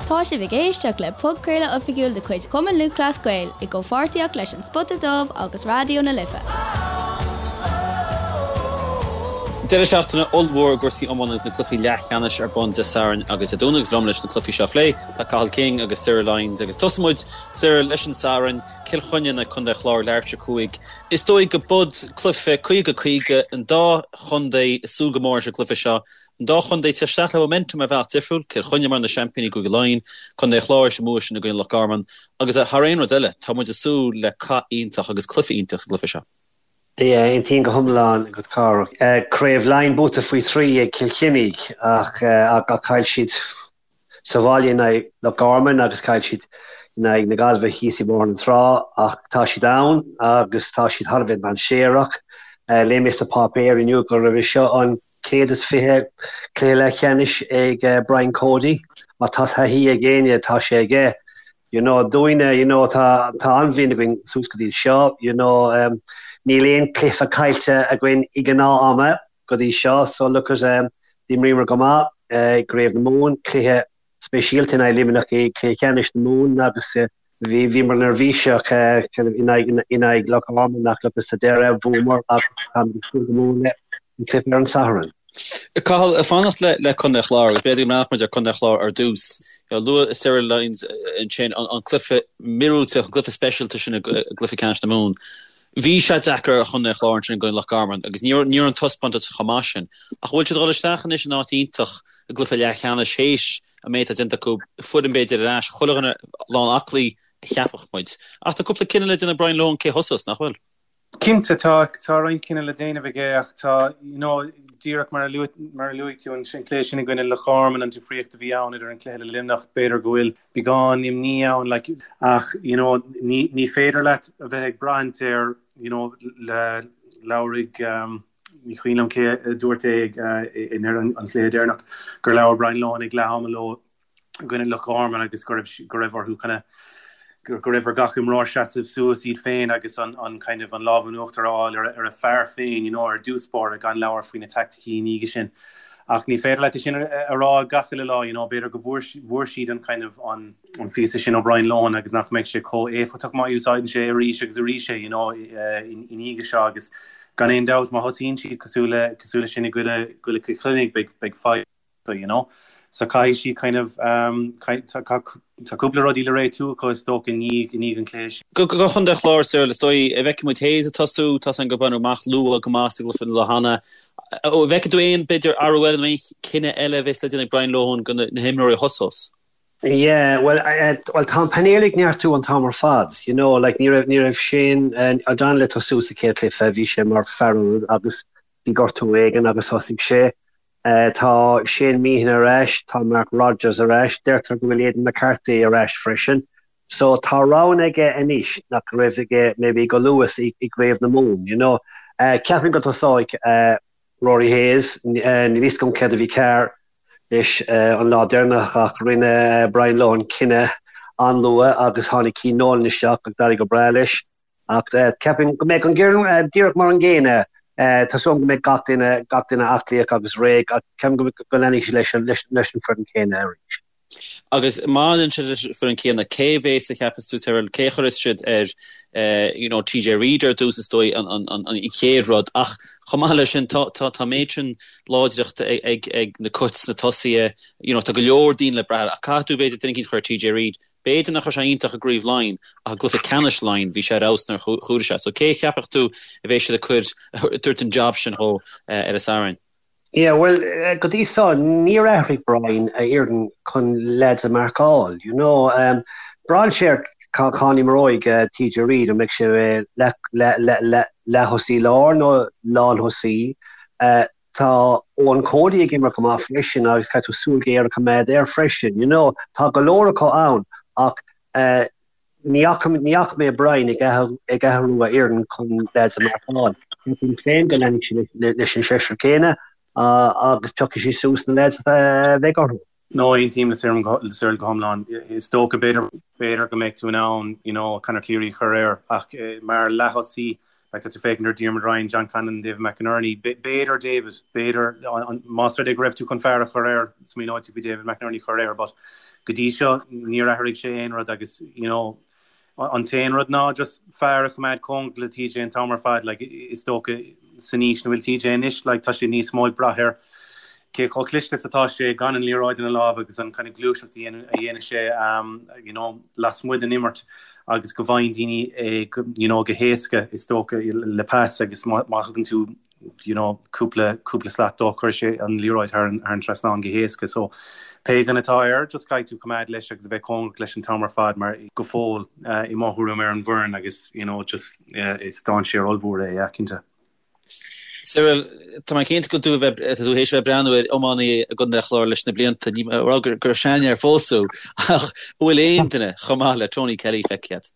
Tá sibh ag éisteacht le podchraoladh oifigiúil de chuid Chumann Lúthchleas Gael i gcomhpháirtíocht leis An Spota Dubh agus Raidió na Life. Deireadh seachtaine ollmhór i gcúrsaí iomána agus na cluichí leathcheannais ar bun Dé Sathairn agus Dé Domhnaigh agus liom leis na cluichí seo a phlé tá Cathal King agus Cyril Lyons agus tosóidh muid, Cyril, leis an Satharn, Cill Chainnigh in aghaidh Contae an Chláir, leathuair tar éis 5. Is dóigh go bud cluiche 50-50 an dá chontae ag súil go mór leis an gcluiche seo. An dá chontae ag teacht isteach le momentum ar bhealach difriúil, Cill Chainnigh mar na seaimpíní i gCúige Laighean, Contae an Chláir tar éis an bua sin i gcoinne Loch Garman agus thar aon rud eile, tá muid ag súil le cath iontach agus cluiche iontach sa gcluiche seo. Yeah, aontaím go hiomlán agat Cárthach. Craobh Laighean buaite faoi thrí ag Cill Chainnigh ach chaill siad sa bhaile in aghaidh Loch Garman agus chaill siad in aghaidh na Gaillimhe thíos i mBóthar na Trá ach tá siad ann agus tá siad thar a bheith dainséarach. Léigh mé sa pháipéar inniu go raibh seo an 120 cluiche leathcheannais ag Brian Cody. Má tá taithí ag éinne, tá sé aige. You know, dúinne, you know, tá tá an-bhliain againn suas go dtí seo, you know, um, níl aon cluiche caillte againn i ngnáth ama go dtí seo, so look at, um, d'imríomar go maith i gCraobh na Mumhan, cluiche speisialta in aghaidh Luimneach i gcluiche ceannais na Mumhan agus bhí bhíomar neirbhíseach in aghaidh in aghaidh Loch Garman ach look at sa deireadh bhuamar agus táimid ag súil go mór le an cluiche ar an Satharn. Cathal, ag fanacht le le Contae an Chláir agus b'fhéidir go mbreathnódh muid ar Contae an Chláir ar dtús. Luaigh Cyril Lyons ansin an cluiche míorúilteach, an cluiche speisialta sin i gcluiche ceannais na Mumhan. Bhí sé deacair ar Chontae an Chláir ansin i gcoinne Loch Garman agus ní raibh an taispeántas chomh maith sin. Ach bhfuil siad ag dul isteach anois in áit iontach i gcluiche leathcheannais théis an méid atá déanta acu, foireann b'fhéidir ar ais, chuile dhuine lán aclaí a cheapfadh muid. Ach tá cúpla cinneadh le déanamh ag Brian Lohan cé thosós, nach bhfuil? Cinnte, tá, tá roinnt cinneadh le déanamh aige ach tá, you know, díreach mar a luaigh, mar a luaigh tú an cluiche sin i gcoinne Loch Garman, an difríocht a bhí ann idir an cluiche le Luimneach, b'fhéidir go bhfuil beagán imní ann, like, ach, you know, ní, ní féidir leat a bheith ag braithint ar, you know, le, labhraigh, um, ní cuimhin liom cé a dúirt é ag, uh, i ndeireadh an chluiche deireanach, gur labhair Brian Lohan ag leath ama leo i gcoinne Loch Garman agus go raibh, go raibh orthu kind of, go raibh ar gach imreoir seasamh suas iad féin agus an, an kind of an lámh in uachtar a fháil ar, ar a fear féin, you know, ar dtús báire gan labhairt faoi na teaicticí i ndiaidh sin. Ach ní féidir leat é sin a rá gach uile lá, you know, b'fhéidir go bhfuair, bhfuair siad an kind of an, an phíosa sin ó Brian Lohan agus nach mbeidh sé chomh éifeachtach má úsáideann sé arís agus arís é, you know, i ndiaidh seo agus gan aon dabht má thosaíonn siad cosúil le, cosúil le sin i gcoinne, gcoinne Chill Chainnigh beidh, beidh fadhb acu, you know. So caithfidh siad kind of, um, tá, tá cúpla rudaí le réitiú acu is dócha i ndiaidh, i ndiaidh an chluiche sin. Do Chontae an Chláir, Cyril, is dóigh, an bhfeicfidh muid Hayes ag tosú, tá a fhios againn gur baineadh amach luath go maith sa gcluiche an lá cheana. An bhfeicfidh tú aon, b'fhéidir, athrú eile nó aon chinneadh eile a bheas le déanamh ag Brian Lohan do na himreoirí a thosós? Yeah, well, well tá an painéal ag neartú an t-am ar fad, you know, like ní raibh, ní raibh Shane O'Donnell ag tosú sa chéad chluiche, bhí sé mar fear ionaid agus bhí gortú éigin agus thosaigh sé. Tá Shane Meehan ar ais, tá Mark Rodgers ar ais, deirtear go bhfuil Aidan McCarthy ar ais freisin. So tá roghanna aige anois nach raibh aige maybe go luath i gCraobh na Mumhan, you know. Ceapaim go dtosóidh Rory Hayes, níl fhios agam céard a bhí cearr leis an lá deireanach ach rinne Brian Lohan cinneadh an-luath agus tháinig Cian Nolan isteach agus d'éirigh go breá leis. Ach ceapaim go mbeidh an fhoireann díreach mar an gcéanna. Tá súil agam go mbeidh gach duine, gach duine aclaíoch agus réidh ach ceapaim go leanfaidh siad leis an, leis an foireann céanna arís. Agus má leanann siad leis an foireann céanna, cé a bheas a cheapas tú, Cyril, cé a chuirfeas siad ar you know TJ Reid ar dtús is dóigh an, an, an, an chéad rud ach chomh maith leis sin tá, tá, tá méid sin láidreachta ag, ag, ag na Cait sna tosaithe, you know tá go leor daoine le brath air ach caithfidh tú b'fhéidir duine eicínt a chur ar TJ Reid B'fhéidir nach raibh sé iontach i gCraobh Laighean ach i gcluiche ceannais Laighean bhí sé ar fheabhas nuair a chuaigh sé. So cé a cheapfadh tú a bheidh siad ag cur, ag tabhairt an job sin dhó ar an Satharn? Yeah, bhuel, go dtí seo níor athraigh Brian a fhoireann chun leaids a mharcáil, you know. Braitheann sé ar cá n-imreoidh TJ Reid, an mbeidh sé leath-thosaí láir nó lán-thosaí. Tá Eoin Cody ag imirt go maith freisin agus caithfidh tú súil ghéar a choimeád air freisin. You know, tá go leor acu ann ach ní fhaca, ní fhaca mé Brian ag ag athrú a fhoireann chun leaids a mharcáil. Ceapaim féin go leanfaidh sé leis an seisear céanna agus piocfaidh sé suas na leaids a bheidh orthu. No, aontaím le Cyril go hiomlán. Is dócha, b'fhéidir, b'fhéidir go mbeidh tú in ann, you know, Conor Cleary a chur air ach mar leath-thosaí. Like tá tú féachaint ar Diarmuid Ryan, John Conlon, David McInerney, b'fhéidir David, b'fhéidir más rud é go raibh tú chun fear a chur air, smaoineoidh tú faoi David McInerney a chur air, but go dtí seo níor athraigh sé aon rud agus you know an t-aon rud ná just fear a choimeád cóngarach le TJ an t-am ar fad, like is dócha san aois ina bhfuil TJ anois, like tá sé níos mó ag brath ar cé chomh cliste is atá sé gan an liathróid ina lámh agus an kind of gluaiseacht a dhéanann sé you know lasmuigh den imirt agus go bhfaigheann daoine é you know go héasca is dócha le pas agus má thugann tú you know cúpla cúpla slat dó cuirfidh sé an liathróid thar an thar an trasnán go héasca so pé duine atá air just caithfidh tú coimeád leis agus a bheith cóngarach leis an t-am ar fad mar go fóill i mo thuairim ar an bhfoireann agus you know just is dainséar ollmhór é yeah cinnte. Cyril, tá mé cinnte go bhfuil tú a bheith, tá tú théis a bheith ag breathnú ar iománaí i gContae an Chláir leis na blianta, ní mé a rá gur gur seanfhear fós thú, ach an bhfuil aon duine chomh maith le Tony Kelly feicthe agat?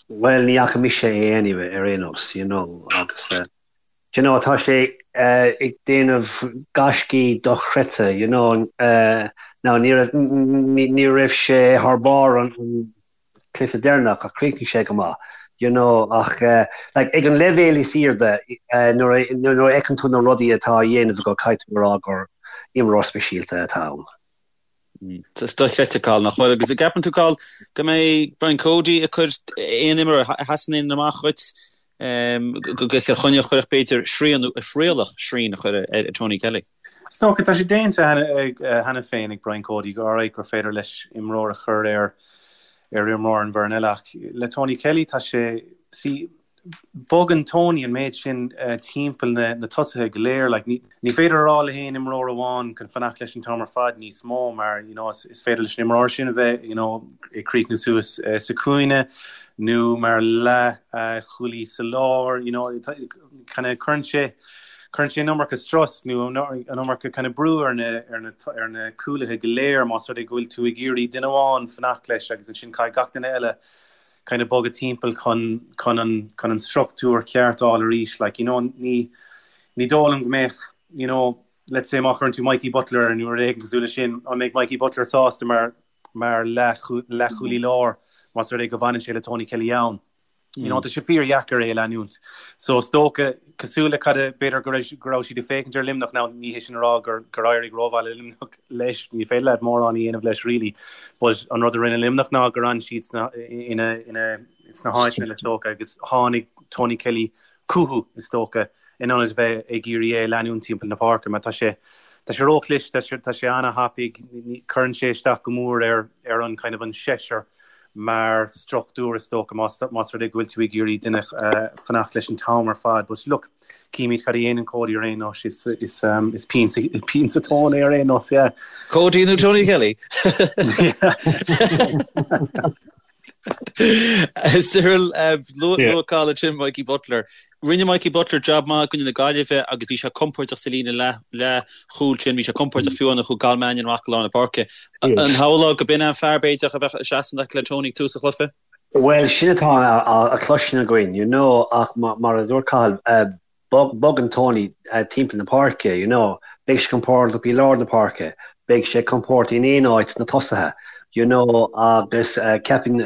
Bhuel, ní fhaca mise é anyway, ar aon nós, you know, agus eh, you know, tá sé eh, ag déanamh gaiscí dochreidte, you know, eh, now ní raibh, ní raibh sé thar barr an, an cluiche deireanach ach chríochnaigh sé go maith you know ach like ag an leibhéal is airde nuair a nuair a fheiceann tú na rudaí atá á dhéanamh aige caithfidh tú a rá gur imreoir speisialta atá ann. Dochreidte Cathal nach bhfuil agus an gceapann tú Cathal go mbeidh Brian Cody ag cur aon imreoir a sheasann aon amach dhuit do Chill Chainnigh a chuirfeadh b'fhéidir srian nó a thrialfadh srian a chur ar Tony Kelly? Is dócha, tá sé déanta cheana féin ag Brian Cody go alright gur féidir leis imreoir a chur ar ar imreoir an bhfoireann eile ach le Tony Kelly tá sé, see, bogann Tony an méid sin timpeall na na tosaithe go léir like ní ní féidir a rá le haon imreoir amháin chun fanacht leis an t-am ar fad níos mó mar you know is is féidir leis an imreoir sin a bheith you know ag críochnú suas sa chúinne nó mar leath chúlaí sa lár you know kind of cuireann sé cuireann sé an iomarca strus nó an iomarca kind of brú ar na ar na ar na cúlaithe go léir más rud é go bhfuil tú ag iarraidh duine amháin fanacht leis agus ansin caithfidh gach duine eile kind of bogadh timpeall chun chun an chun an struchtúr ceart a fháil arís like you know ní ní dóigh liom go mbeadh you know let's say má chuireann tú Mikey Butler air nó rud éigin cosúil leis sin an mbeidh Mikey Butler sásta mar mar leathchúlaí láir más rud é go bhfanann sé le Tony Kelly ann. You know, tá sé fíordheacair é a leanúint. So is dócha, cosúil le cad a, b'fhéidir go raibh, go raibh siad ag féachaint ar Luimneach, now ní hé sin a rá gur, gur éirigh rómhaith le Luimneach leis, ní féidir leat mórán a dhéanamh leis really, but an rud a rinne Luimneach ná gur fhan siad sna, ina, ina, sna háiteanna is dócha agus tháinig Tony Kelly chucu is dócha in ionad a bheith ag iarraidh é a leanúint timpeall na páirce mar tá sé, tá sé róchliste, tá sé, tá sé an-thapaidh, cuireann sé isteach go mór ar, ar an kind of an seisear mar struchtúr is dócha más más rud é go bhfuil tú ag iarraidh duine fanacht leis an t-am ar fad. But look, címid cad a dhéanann Cody ar aon nós, is is um, is pian sa pian sa tóin é ar aon nós, yeah. Cody nó Tony Kelly? Cyril, luaigh Cathal ansin Mikey Butler. Rinne Mikey Butler jab maith i gcoinne na Gaillimhe agus bhí sé compordach sa líne leathchúil sin, bhí sé compordach fiú nuair a chuaigh Cathal Mannion amach go lár na páirce. An shamhlófá go b'in an fear b'fhéidir a bheadh ag seasamh le Tony ag tús an chluiche? Bhuel, sin atá á chloisint againn, you know, ach mar a dúirt Cathal, bogann Tony timpeall na páirce, you know, beidh sé compordach i lár na páirce, beidh sé compordach in aon áit sna tosaithe, you know, agus ceapaim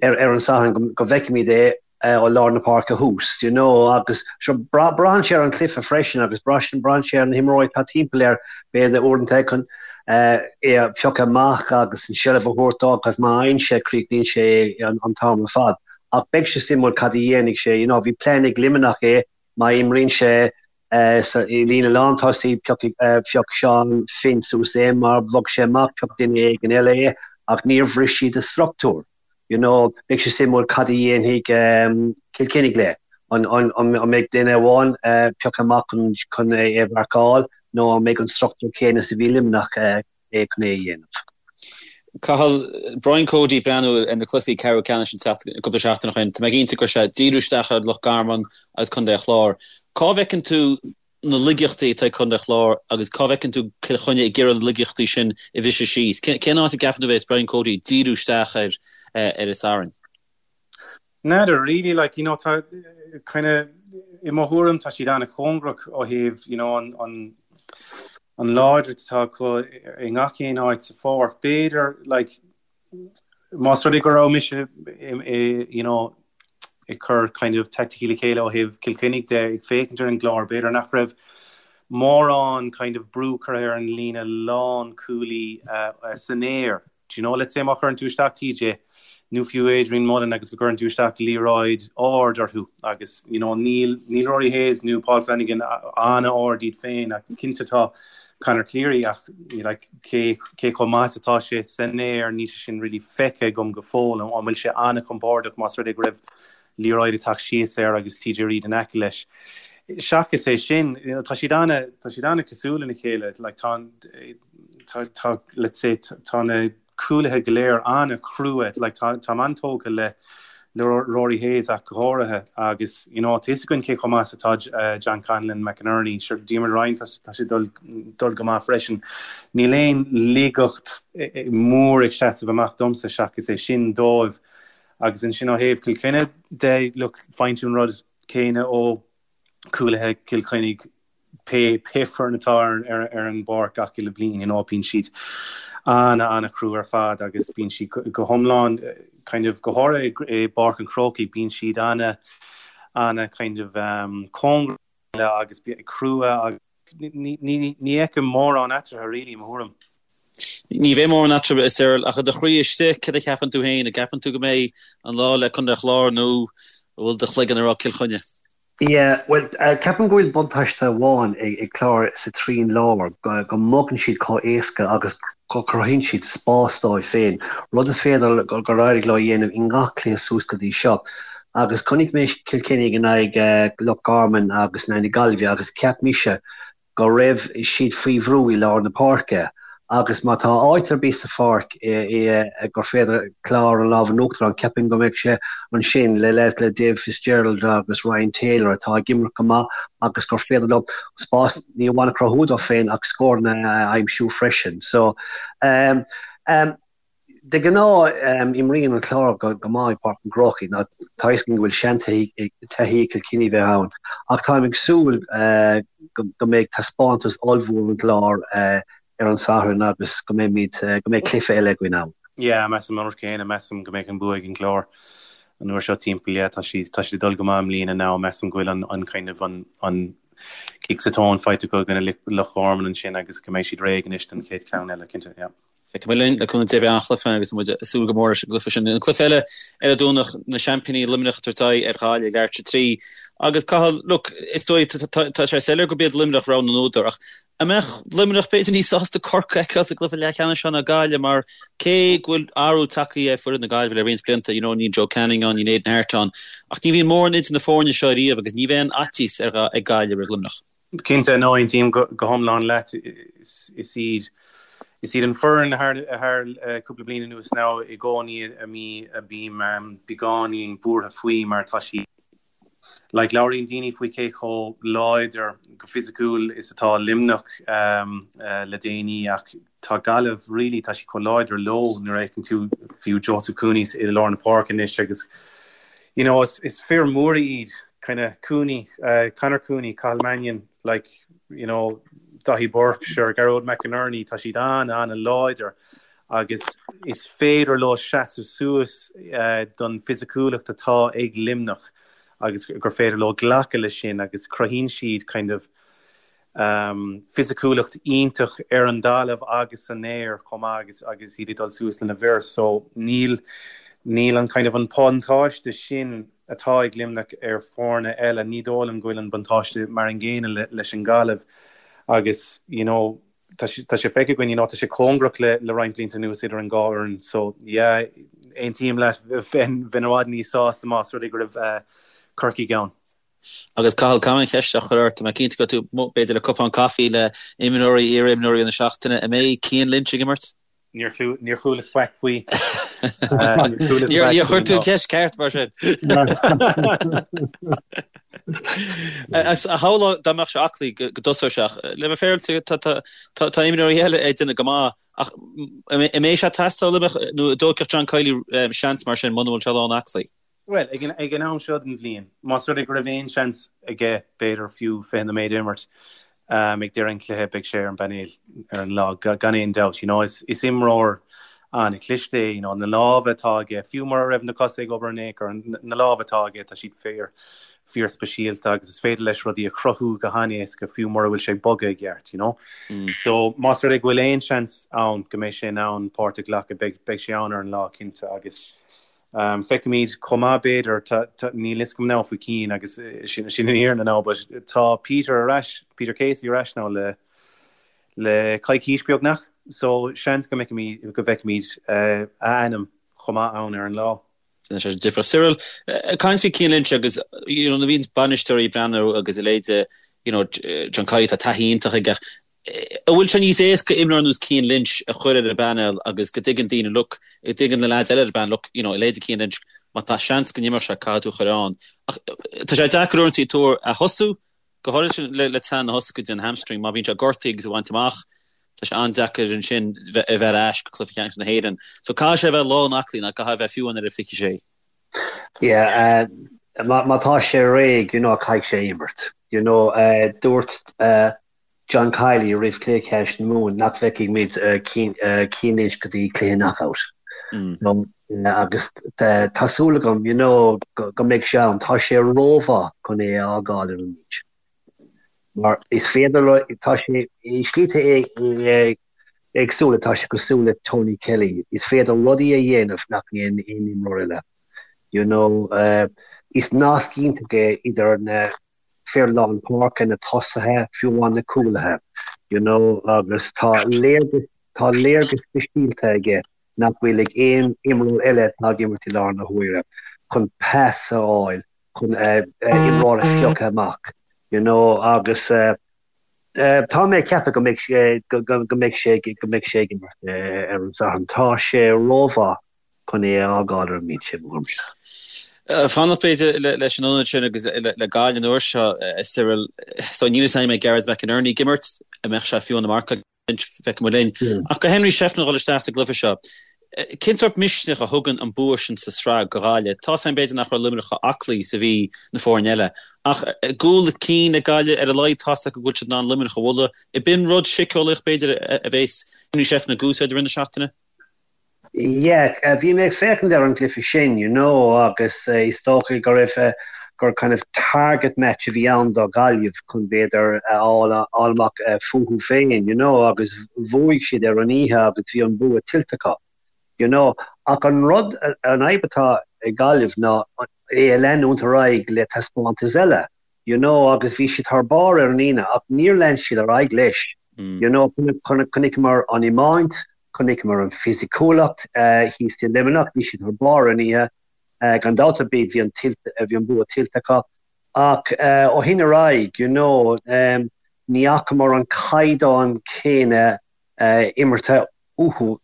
ar an Satharn go bhfeicfimid é ó lár na páirce thuas, you know, agus sure braitheann sé ar an chluiche freisin agus braitheann sé ar na himreoirí atá timpeall air, b'fhéidir uaireanta chun é a phiocadh amach agus an seilbh a thabhairt dó agus má fhaigheann sé, críochnaíonn sé é an t-am ar fad. Ach beidh sé suimiúil cad a dhéanfaidh sé, you know, bhí plean ag Luimneach é, má imríonn sé sa i líne lántosaigh, piocfaidh, phioc Seán Finn suas é, má bhog sé amach, phioc duine éigin eile é, ach níor bhris siad a struchtúr, you know, beidh sé suimiúil cad a dhéanfaidh Cill Chainnigh le, an, an, an mbeidh duine amháin pioctha amach chun, chun é a mharcáil nó an mbeidh an struchtúr céanna is a bhí Luimneach é chun é a dhéanamh. Cathal, Brian Cody ag breathnú ar na cluichí ceathrú ceannais an tseachtain, cúpla seachtain ó shin, tá mé cinnte go raibh sé ag díriú isteach ar Loch Garman agus Contae an Chláir. Cá bhfeiceann tú na laigeachtaí atá ag Contae an Chláir agus cá bhfeiceann tú Cill Chainnigh ag iarraidh na laigeachtaí sin a bhriseadh síos? Cén áit a gceapann tú a bheas Brian Cody ag díriú isteach air ar an Satharn? N'fheadar really, like, you know, tá kind of, i mo thuairim tá siad an-chóngarach ó thaobh, you know, an, an, an láidreacht atá acu i ngach aon áit sa pháirc. B'fhéidir, like, más rud é go raibh mise, i, you know, ag cur kind of taicticí le chéile ó thaobh Cill Chainnigh de, ag féachaint ar an gClár, b'fhéidir nach raibh mórán kind of brú curtha ar an líne lánchúlaí san aer. Do you know, let's say má chuireann tú isteach TJ nó fiú Adrian Mullen agus go gcuireann tú isteach liathróid ard orthu agus you know níl níl Rory Hayes nó Paul Flanagan an-ard iad féin ach cinnte tá Conor Cleary ach like cé cé chomh maith is atá sé san aer níl sé sin really feicthe agam go fóill an bhfuil sé an-chompordach más rud é go raibh liathróid ag teacht síos air agus TJ Reid in aice leis. Seachas é sin, tá siad ana, tá siad ana-cosúil lena chéile, like tá an, tá, tá, let's say, tá na cúlaithe go léir ana-chrua, like tá, táim an-tógtha le, le Rory Hayes ach go háirithe agus, you know, tá fhios againn cé chomh maith is atá John Conlon, McInerney, sure Diarmuid Ryan, tá, tá sé dul, dul go maith freisin. Níl aon laigeacht mór ag seasamh amach domsa seachas é sin dóibh. Agus ansin ó thaobh Chill Chainnigh de, look, faigheann tú an rud céanna ó chúlaithe Chill Chainnigh pé pé foireann atá ar ar ar an bpáirc gach uile bliain, you know, bíonn siad ana ana-chrua ar fad agus bíonn siad go go hiomlán kind of go háirithe i bPáirc an Chrócaigh, bíonn siad ana ana kind of um, cóngarach agus crua agus ní ní ní fheicim mórán eatarthu really, i mo thuairim. Ní bheidh mórán eatarthu, a Cyril, ach i do chroí istigh, céard a cheapann tú féin? An gceapann tú go mbeidh an lá le Contae an Chláir nó an bhfuil do chloigeann ag rá Cill Chainnigh? Yeah, bhuel, ceapaim go bhfuil buntáiste amháin ag Clár sa trian láir, go mbogann siad chomh éasca agus go cruthaíonn siad spás dóibh féin, rud is féidir gur éirigh leo a dhéanamh i ngach cluiche suas go dtí seo. Agus chonaic mé Cill Chainnigh in aghaidh Loch Garman agus in aghaidh na Gaillimhe agus cheap mise go raibh siad faoi bhrú i lár na páirce agus má tá áit ar bith sa pháirc gur féidir Clár an lámh in uachtar ann, ceapaim go mbeidh sé ansin le leaids le Dave Fitzgerald agus Ryan Taylor atá ag imirt go maith agus gur féidir leo spás ní amháin a chruthú dóibh féin ach scóranna a aimsiú freisin. So, um, um, De ghnáth, imríonn an Clár go maith i bPáirc an Chrócaigh. Tá a fhios againn go bhfuil seantaithí ag Cill Chainnigh bheith ann, ach táim ag súil go mbeidh taispeántas ollmhór ón gClár ar an Satharn agus go mbeimid, go mbeidh cluiche eile againn ann. Yeah, measaim an rud céanna, measaim go mbeidh an bua ag an gClár an uair seo timpeall, yeah, tá siad, tá siad ag dul go maith i mbliana now, measaim go bhfuil an, an kind of an, an kick sa tóin faighte acu i gcoinne Loch Garman ansin agus go mbeidh siad réidh anois don chéad cheann eile, cinnte, yeah. Feicfidh muid linn, le cúnamh Dé beidh an-chluiche ann agus muid ag súil go mór leis an gcluiche sin. An cluiche eile ar an Domhnach, na seaimpíní Luimneach ag tabhairt aghaidh ar Ghaillimh ag leathuair tar éis a 3. Agus Cathal, look, is dóigh, tá sé soiléir gurb iad Luimneach rogha na n-údar ach an mbeadh Luimneach b'fhéidir níos sásta Corcaigh a fheiceáil sa gcluiche leathcheannais seo ná Gaillimh mar cé go bhfuil athrú tagtha ar foireann na Gaillimhe le roinnt blianta, you know, níl Joe Canning ann, níl Aidan Harte ann ach ní bhíonn mórán idir na foirne seo ariamh agus ní bheidh aon fhaitíos ag Gaillimh roimh Luimneach. Cinnte, no, aontaím go hiomlán leat. Is iad is iad an foireann thar thar cúpla bliain anuas now i gcónaí a mí a bím beagáinín buartha faoi mar tá siad like labhraíonn daoine faoi cé chomh láidir go fisiciúil is atá Luimneach le déanaí ach tá Gaillimh really tá siad chomh láidir leo nuair a fheiceann tú fiú Joseph Cooney i lár na páirce anois agus you know is is fir móra iad kind of Cooney uh, Conor Cooney, Cathal Mannion like you know Daithí Burke, sure Gearóid McInerney tá siad an an-láidir agus is féidir leo seasamh suas uh, don fisiciúlacht atá ag Luimneach agus gur féidir leo glacadh leis sin agus cruthaíonn siad kind of fisiciúlacht iontach ar an dtalamh agus san aer chomh maith agus agus iad ag dul suas lena bhfir so níl níl an kind of an buntáiste sin atá ag Luimneach ar foirne eile, ní dóigh liom go bhfuil an buntáiste mar an gcéanna leis an Ghaillimh agus you know tá sé tá sé feicthe againn you know tá sé cóngarach le le roinnt blianta anuas idir an dhá fhoireann so yeah aontaím leat bheinn bheinn i bhfad níos sásta más rud é go raibh Corcaigh ann. Agus Cathal, caithfidh mé an cheist seo a chur ort, tá mé cinnte go raibh tú amuigh b'fhéidir le cupán caife le imreoirí, iar-imreoirí na seachtaine, an mbeidh Cian Lynch ag imirt? Níor chualas faic faoi. Níor chuir tú an cheist ceart mar sin. A shamhlófá dá mbeadh sé aclaí go dtosódh sé ach le bheith féaráilte tá imreoirí eile ag déanamh go maith ach an mbeidh sé ag teastáil ó Luimneach nó an dtógfadh John Kiely seans mar sin muna bhfuil sé lán aclaí? Bhuel, ag an, ag an am seo den bhliain, más rud é go raibh aon seans aige, b'fhéidir fiú 20 nóiméad a imirt ag deireadh an chluiche, beidh sé ar an bpainéal ar an lá, gan aon dabht. You know, is, is imreoir an-chliste é, you know, na lámha atá aige, fiú mura raibh na cosa ag obair in aon chor, na lámha atá aige, tá siad fíor, fíor speisialta agus is féidir leis rudaí a chruthú go han-éasca fiú mura bhfuil sé ag bogadh i gceart, you know. So más rud é go bhfuil aon seans ann go mbeidh sé in ann páirt a ghlacadh, beidh, beidh sé ann ar an lá cinnte agus um, feicfimid chomh maith b'fhéidir, tá, tá, níl fhios agam now faoi Cian agus sin, sin an fhírinne now, but tá Peter ar ais, Peter Casey ar ais now le, le coicís beagnach, so seans go mbeicimid, go bhfeicfimid a ainm chomh maith ann ar an lá. Déanann sé difear. Cyril, ag caint faoi Cian Lynch agus you know nuair a bhíonn bainisteoirí ag breathnú agus a leithéid you know John Kiely tá taithí iontach aige ach an bhfuil sé níos éasca imreoir ar nós Cian Lynch a chur ar an bpainéal agus go dtuigeann daoine look go dtuigeann na leaids eile ar an bpainéal look you know a leithéid Cian Lynch má tá seans go n-imreodh sé caithfidh tú a chur ann ach tá sé deacair uaireanta tuar a thosú Go háirithe le teann na hioscaide, an hamstring, má bhíonn sé gortaithe agus á bhaint amach, tá sé an-deacair ansin a bheith ar ais go Cluiche Ceannais na hÉireann. So caithfidh sé a bheith lán aclaí, nó caithfidh a bheith fiú amháin ar a 26. Yeah, má tá sé réidh, you know, caithfidh sé imirt. You know, dúirt John Kiely roimh Chluiche Ceannais na Mumhan nach bhfeicfidh muid Cian Lynch go dtí cluiche knockout. Agus tá súil agam you know go mbeidh sé ann. Tá sé rómhaith chun é a fhágáil ar an mbinse. Mar is féidir, tá sé i slite éagsúla, tá sé cosúil le Tony Kelly. Is féidir rudaí a dhéanamh nach ndéanann aon imreoir eile. You know, is nasc iontach é idir na fir lár páirce, na tosaithe, fiú amháin na cúlaithe, you know, agus tá léargas, tá léargas speisialta aige nach bhfuil ag aon imreoir eile atá ag imirt i láthair na huaire, chun pas a fháil, chun imreoir a phiocadh amach, you know, agus tá mé ag ceapadh go mbeidh sé, go mbeidh sé, go mbeidh sé ag imirt ar an Satharn. Tá sé rómhaith chun é a fhágáil ar an mbinse, mo thuairimse. Fanacht b'fhéidir leis an ionad sin agus le Gaillimh an uair seo, a Cyril. So níl fhios agam an mbeidh Gearóid McInerney ag imirt, an mbeadh sé fiú ina marcáil feicfidh muid linn. Ach do Henry Shefflin a dhul isteach sa gcluiche seo, cén sórt misneach a thugann an bua sin sa sraith do Ghaillimh? Tá's agam b'fhéidir nach raibh Luimneach chomh aclaí is a bhí na foirne eile, ach cúl chun cinn ag Gaillimh ar a laghad tá's acu go bhfuil siad in ann Luimneach a bhualadh. Ab in rud síceolaíoch b'fhéidir a bheas Henry Shefflin ag úsáid i rith na seachtaine? Yeah, bhí mé ag féachaint ar an gcluiche sin, you know, agus is dócha go raibh, gur kind of target match a bhí ann do Ghaillimh chun b'fhéidir a fháil amach fúthu féin, you know, agus bhuaigh siad ar an oíche agus bhí an bua tuillte acu, you know. Ach an rud, an fhadhb atá ag Gaillimh ná é a leanúint ar aghaidh le taispeántas eile. you know, agus bhí siad thar barr ar an Aoine ach níor lean siad ar aghaidh leis, you know, chonaiceamar an iomáint, chonaiceamar an fisiciúlacht thíos i Luimneach, bhí siad thar barr ar an oíche, gan dabht ar bith bhí an bhí an bua tuillte acu ach ó shin ar aghaidh, you know, ní fhacamar an caighdeán céanna imeartha uathu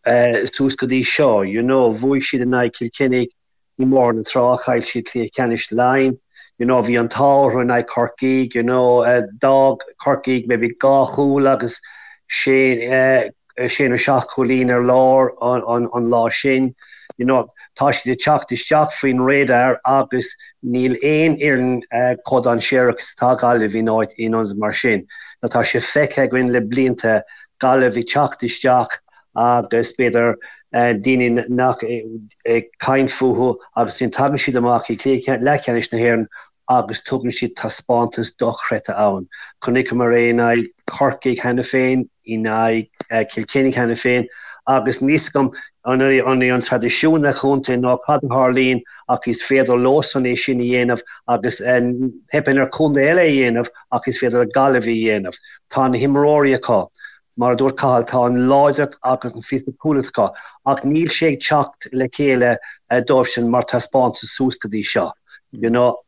suas go dtí seo, you know, bhuaigh siad in aghaidh Chill Chainnigh, i mBóthar na Trá, chaill siad cluiche ceannais Laighean, you know, bhí an t-ádh orthu in aghaidh Chorcaigh, you know, d'fhág Corcaigh maybe dhá chúl agus sé, sé nó seacht chúilín ar lár an, an lá sin, you know, tá siad ag teacht isteach faoin radar agus níl aon fhoireann chomh dainséarach is atá Gaillimh in áit, in ionad mar sin. Now tá sé feicthe againn le blianta, Gaillimh ag teacht isteach agus b'fhéidir daoine nach ag caint fúthu agus ansin tagann siad amach i gcluiche leathcheannais na hÉireann agus tugann siad taispeántas dochreidte ann. Chonaiceamar é in aghaidh Chorcaigh cheana féin, in aghaidh Chill Chainnigh cheana féin agus níl fhios agam an é an traidisiún sa chontae nó cad a tharlaíonn ach is féidir leosan é sin a dhéanamh agus teipeann ar chontae eile é a dhéanamh ach is féidir le Gaillimh é a dhéanamh. Tá na himreoirí acu. Mar a dúirt Cathal, tá an láidreacht agus an fisiciúlacht acu, ach níl sé ag teacht le chéile dóibhsean mar taispeántas suas go dtí seo. You know,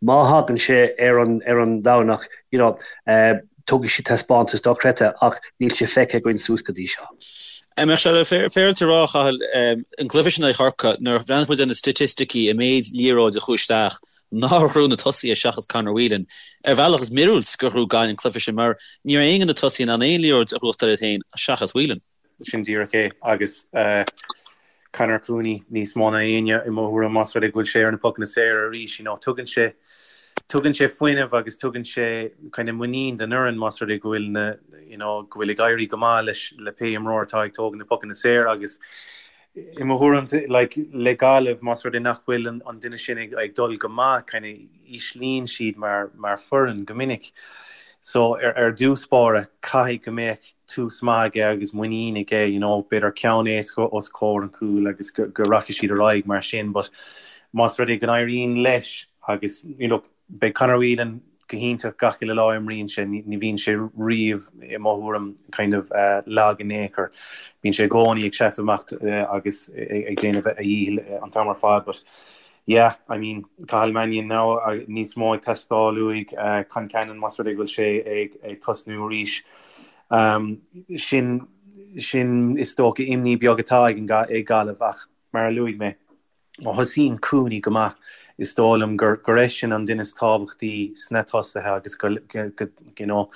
má thagann sé ar an ar an Domhnach, you know, tabharfaidh siad taispeántas dochreidte, ach níl sé feicthe againn suas go dtí seo. An mbeadh sé féaráilte a rá, a Chathail, an cluiche sin in aghaidh Chorcaí, nuair a bhreathnaigh muid ar na staitisticí, an méid liathróid a chuaigh isteach, nár ghnóthaigh na tosaithe seachas Conor Whelan. Ar bhealach, is míorúilt gur ghnóthaigh Gaillimh an cluiche sin mar ní raibh aon de na tosaithe in ann aon liathróid a ghnóthachtáil iad féin seachas Whelan. Sin díreach é agus Conor Cooney níos mó ná éinne i mo thuairim más rud é go bhfuil sé ar na pocanna saora arís. You know, tugann sé tugann sé fuinneamh agus tugann sé kind of muinín don fhoireann más rud é go bhfuil na you know, go bhfuil ag éirí go maith leis le pé imreoir atá ag tógaint na pocanna saora agus. I mo thuairim, like, le Gaillimh, más rud é nach bhfuil an duine sin ag dul go maith, kind of íslíonn siad mar mar foireann go minic. So ar ar dtús báire, caithfidh go mbeadh tús maith aige agus muinín aige, you know, b'fhéidir ceann éasca os comhair an chúil agus go go rachaidh siad ar aghaidh mar sin. But más rud é go n-éiríonn leis agus, you know, Beidh Conor Whelan go hiontach gach uile lá a imríonn sé, ní bhíonn sé riamh, i mo thuairim, kind of lag in aon chor. Bíonn sé i gcónaí ag seasamh amach agus ag déanamh a dhícheall an t-am ar fad but yeah, I mean, Cathal Mannion now níos mó ag teastáil uaidh, Concannon más rud é go bhfuil sé ag tosnú arís. Sin, sin is dócha imní beag atá ag Gaillimh ach mar a luaigh mé, Má thosaíonn Cooney go maith, is dóigh liom gur gur eisean an duine is tábhachtaí sna tosaithe agus go you know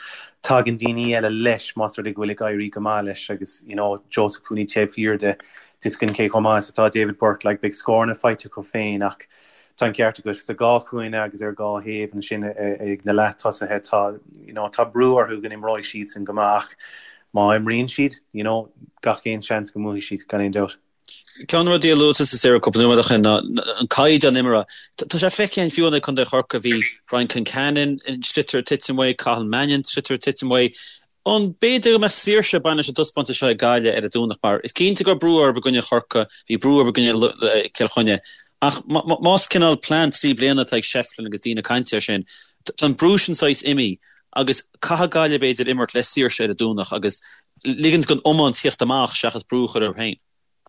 tagann daoine eile leis más rud é go bhfuil ag éirí go maith leis agus you know Joseph Cooney taobh thiar de, tá a fhios againn cé chomh maith is atá David Burke, like beidh scóranna faighte acu féin ach tá an ceart agat sa dhá chúinne agus ar dhá thaobh ansin ag na leath-tosaithe tá you know tá brú orthu go n-imreoidh siadsan go maith ach má imríonn siad you know gach aon seans go mbuafaidh siad gan aon dabht. Ceann de na rudaí a luaigh tusa Cyril cúpla nóiméad ó shin ná an caighdeán imeartha. Tá sé feicthe againn fiú in aghaidh Contae Chorcaí, bhí Brian Concannon an sliotar ag titim uaidh, Cathal Mannion an sliotar ag titim uaidh. An b'fhéidir go mbeadh saoirse ag baint leis an dtaispeántas seo ag Gaillimh ar an Domhnach mar is cinnte go raibh brú orthu i gcoinne Chorcaí, bhí brú orthu i gcoinne Cill Chainnigh ach más cineál plean 3 bliana atá ag Shefflin agus daoine ag caint air sin, tá an brú sin saghas imithe agus caithfidh Gaillimh b'fhéidir imirt le saoirse ar an Domhnach agus ligint don iomáint theacht amach seachas brú a chur orthu féin.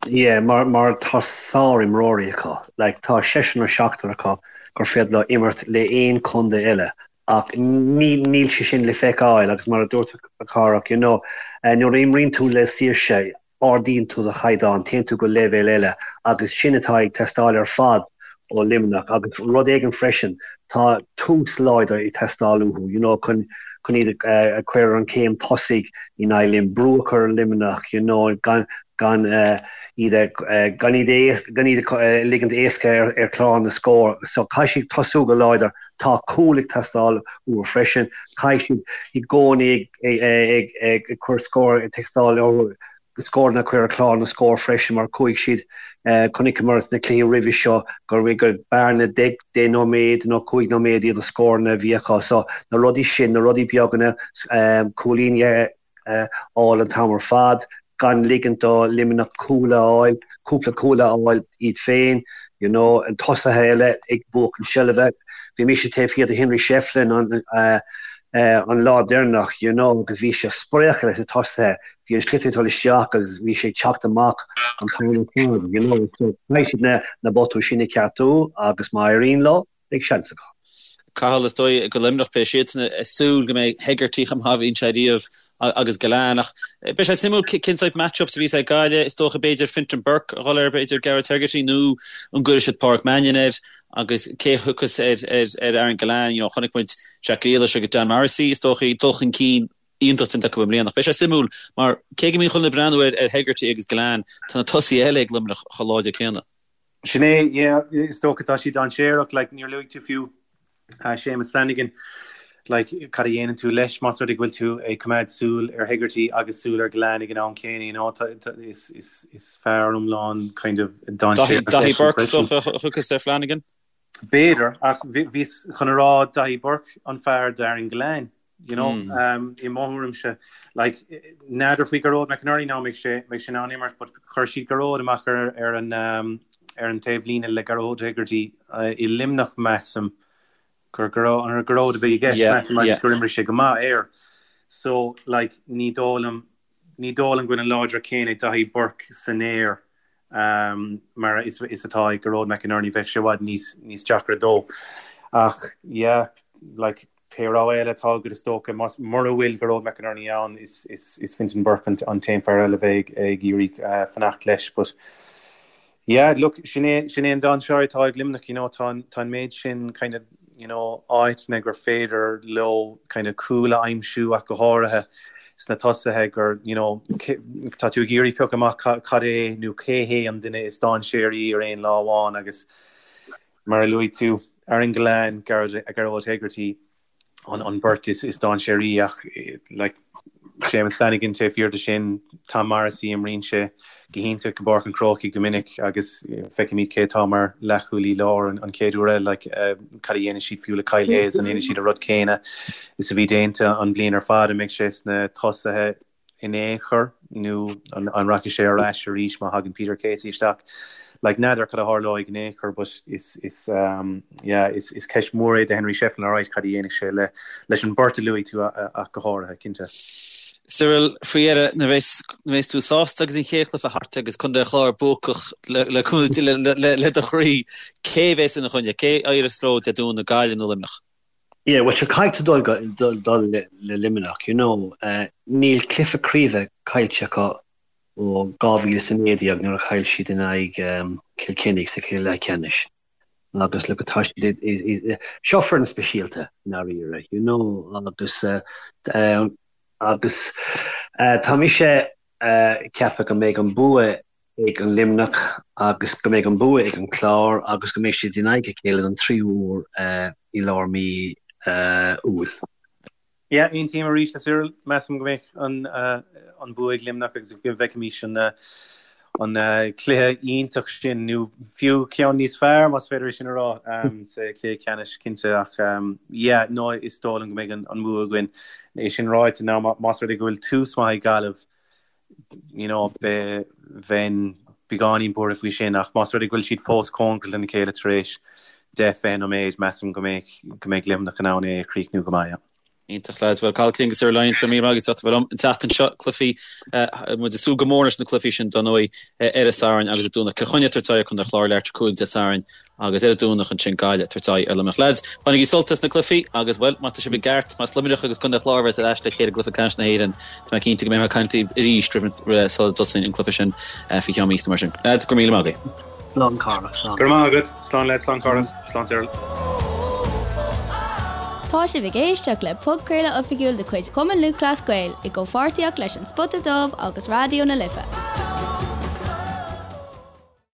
Yeah, mar mar tá sár-imreoirí acu. Like, tá seisear nó seachtar acu gur féidir leo imirt le aon chontae eile ach ní níl sé sin le feiceáil agus mar a dúirt a Chárthach, you know, nuair a imríonn tú le saoirse, ardaíonn tú do chaighdeán, téann tú go leibhéal eile agus sin atá ag teastáil ar fad ó Luimneach agus rud éigin freisin, tá tús láidir ag teastáil uathu, you know, chun chun iad a chur ar an chéim tosaigh in aghaidh Luim, brú a chur ar Luimneach, you know, gan gan iad a gan iad a gan iad a ligint éasca ar ar chlár na scór. So caithfidh siad tosú go láidir, tá cúl ag teastáil uathu freisin, caithfidh siad i gcónaí ag ag ag ag cur scór ag teastáil uathu scóranna a chur ar chlár na scór freisin mar chuaigh siad, chonaiceamar sna cluichí roimhe seo gur gur bearna deich nóiméad nó 5 nóiméad iad na scóranna a bhí acu. So na rudaí sin, na rudaí beaga, cúilíní a fháil an t-am ar fad, gan ligint do Luimneach cúl a fháil, cúpla cúl a fháil iad féin, you know, an tosaithe eile ag buachan seilbhe. Bhí mise taobh thiar de Henry Shefflin an an lá deireanach, you know, agus bhí sé ag spréachadh leis na tosaithe. Bhí an sliotar ag dul isteach agus bhí sé ag teacht amach an t-am ar fad, you know, so caithfidh siad na botúin sin a cheartú agus má éiríonn leo, beidh seans acu. Cathal, is dóigh go Luimneach beidh siadsan ag súil go mbeidh Hegarty chomh maith a bhíonn sé riamh agus Gillane ach beidh sé suimiúil cén sórt match-ups a bhíos ag Gaillimh, is dócha b'fhéidir Fintan Burke a dhul ar b'fhéidir Gearóid Hegarty nó an gcuirfidh siad Páraic Mannion air agus cé a thiocfas ar ar Aaron Gillane, you know, chonaic muid Jack Grealish agus Dan Morrissey is dócha dul chun cinn iontach déanta acu i mbliana. Ach beidh sé suimiúil mar cé go mbíonn chuile dhuine ag breathnú ar Hegarty agus Gillane, tá na tosaithe eile ag Luimneach chomh láidir céanna. Sin é, yeah, is dócha tá siad dainséarach, like, níor luaigh tú fiú Séamus Flanagan, like, cad a dhéanann tú leis más rud é go bhfuil tú ag coimeád súil ar Hegarty agus súil ar Gillane ag an am céanna, you know, tá, tá, is, is, is fear iomlán kind of dainséarach Daithí Burke is dócha a thiocfas ar Flanagan? B'fhéidir, ach bhíos chun a rá Daithí Burke an fear d'Aaron Gillane. You know, i mo thuairimse, like, n'fheadar faoi Gearóid McInerney now, mbeidh sé, mbeidh sé in ann imirt, but chuir siad Gearóid amach ar, ar an, ar an taobh líne le Gearóid Hegarty i Luimneach, measaim, gur Gearóid, an Gearóid a bhí i gceist, measaim, agus gur imrigh sé go maith air. So, like, ní dóigh liom, ní dóigh liom go bhfuil an láidreacht céanna ag Daithí Burke san aer mar is atá ag Gearóid McInerney, bheadh sé i bhfad níos, níos deacra dó. Ach, yeah, like, Pé rogha eile atá agat is dócha, más, mura bhfuil Gearóid McInerney ann, is, is, is Fintan Burke an, an t-aon fear eile a bheidh ag iarraidh fanacht leis. But yeah, look, sin é, sin é an dainséar atá ag Luimneach, you know, tá an, tá an méid sin kind of, you know, áiteanna gur féidir leo kind of cúl a aimsiú ach go háirithe sna tosaithe gur, you know, tá tú ag iarraidh piocadh amach cad é nó cé hé an duine is dainséaraí ar aon lá amháin agus Mar a luaigh tú, Aaron Gillane, Gearóid Hegarty an beirt is dainséaraí ach like Séamus Flanagan taobh thiar de sin, Tom Morrissey imríonn sé. go hiontach i bPáirc an Chrócaigh go minic agus feicfimid cé atá mar leathchúlaí láir an chéad uair eile, like, cad a dhéanfaidh siad fiú le Kyle Hayes, an ndéanfaidh siad an rud céanna is a bhí déanta an bhliain ar fad, an mbeidh sé sna tosaithe in aon chor nó an rachaidh sé ar ais arís má thagann Peter Casey isteach? Like, n'fheadar cad a tharlóidh in aon chor but is, is, yeah, is, is ceist mhór é do Henry Shefflin alright cad a dhéanfaidh sé le, leis an beirt a luaigh tú ach go háirithe, cinnte. Cyril, faoi dheireadh, nuair a bheas tú sásta agus an chéad chluiche thart agus Contae an Chláir buacach le do chroí, cé a bheas ina choinne? Cé a éireos leo Dé Domhnaigh, Gaillimh nó Luimneach? Yeah, bhuel sure caithfidh tú dul dul le Luimneach, you know. Níl cluiche craoibhe caillte acu ó 2019 nuair a chaill siad in aghaidh Cill Chainnigh sa chluiche leathcheannais. Agus look tá siad seo foireann speisialta i ndáiríre, you know, agus agus tá mise ag ceapadh go mbeidh an bua ag an Luimneach agus go mbeidh an bua ag an Clár agus go mbeidh siad in aghaidh a chéile don tríú huair i lár mí Iúil. Yeah, aontaím arís le Cyril. Measaim go mbeidh an bua ag Luimneach agus go bhfeicfimis an cluiche iontach sin, nó fiú ceann níos fearr, más féidir é sin a rá, sa chluiche ceannais, cinnte. Ach yeah, no, is dóigh liom go mbeidh an bua againn. É sin ráite, now, más rud é go bhfuil tús maith ag Gaillimh, you know, bheinn beagáinín buartha faoi sin, ach más rud é go bhfuil siad fós cóngarach lena chéile tar éis 10, 20 nóiméad, measaim go mbeidh, go mbeidh Luimneach in ann é a chríochnú go maith, yeah. Iontach lads. Bhuel, Cathal King agus Cyril Lyons, go raibh míle maith agaibh as ucht a bheith liom an tseachtain seo. Cluichí, muid ag súil go mór leis na cluichí sin, dar ndóigh, ar an Satharn agus an Domhnach. Cill Chainnigh ag tabhairt aghaidh ar Chontae an Chláir leathuair tar éis 5 Dé Sathairn agus ar an Domhnach ansin Gaillimh ag tabhairt aghaidh ar Luimneach. Lads, bainigí sult as na cluichí agus, bhuel, má tá sibh i gceart, más Luimneach agus Contae an Chláir a bheas ar ais le chéile i gcluiche ceannais na hÉireann, Tá mé cinnte go mbeidh mé ag caint libh arís roimh sula dtosaíonn an cluiche sin faoi cheann míosa mar sin. Lads, go raibh míle maith agaibh. Slán Cárthach, slán. Go raibh maith agat. Slán leat, slán Cárthach, slán Cyril. Tá sibh ag éisteacht le podchraoladh oifigiúil de chuid Chumann Lúthchleas Gael i gcomhpháirtíocht leis An Spota Dubh agus Raidió na Life.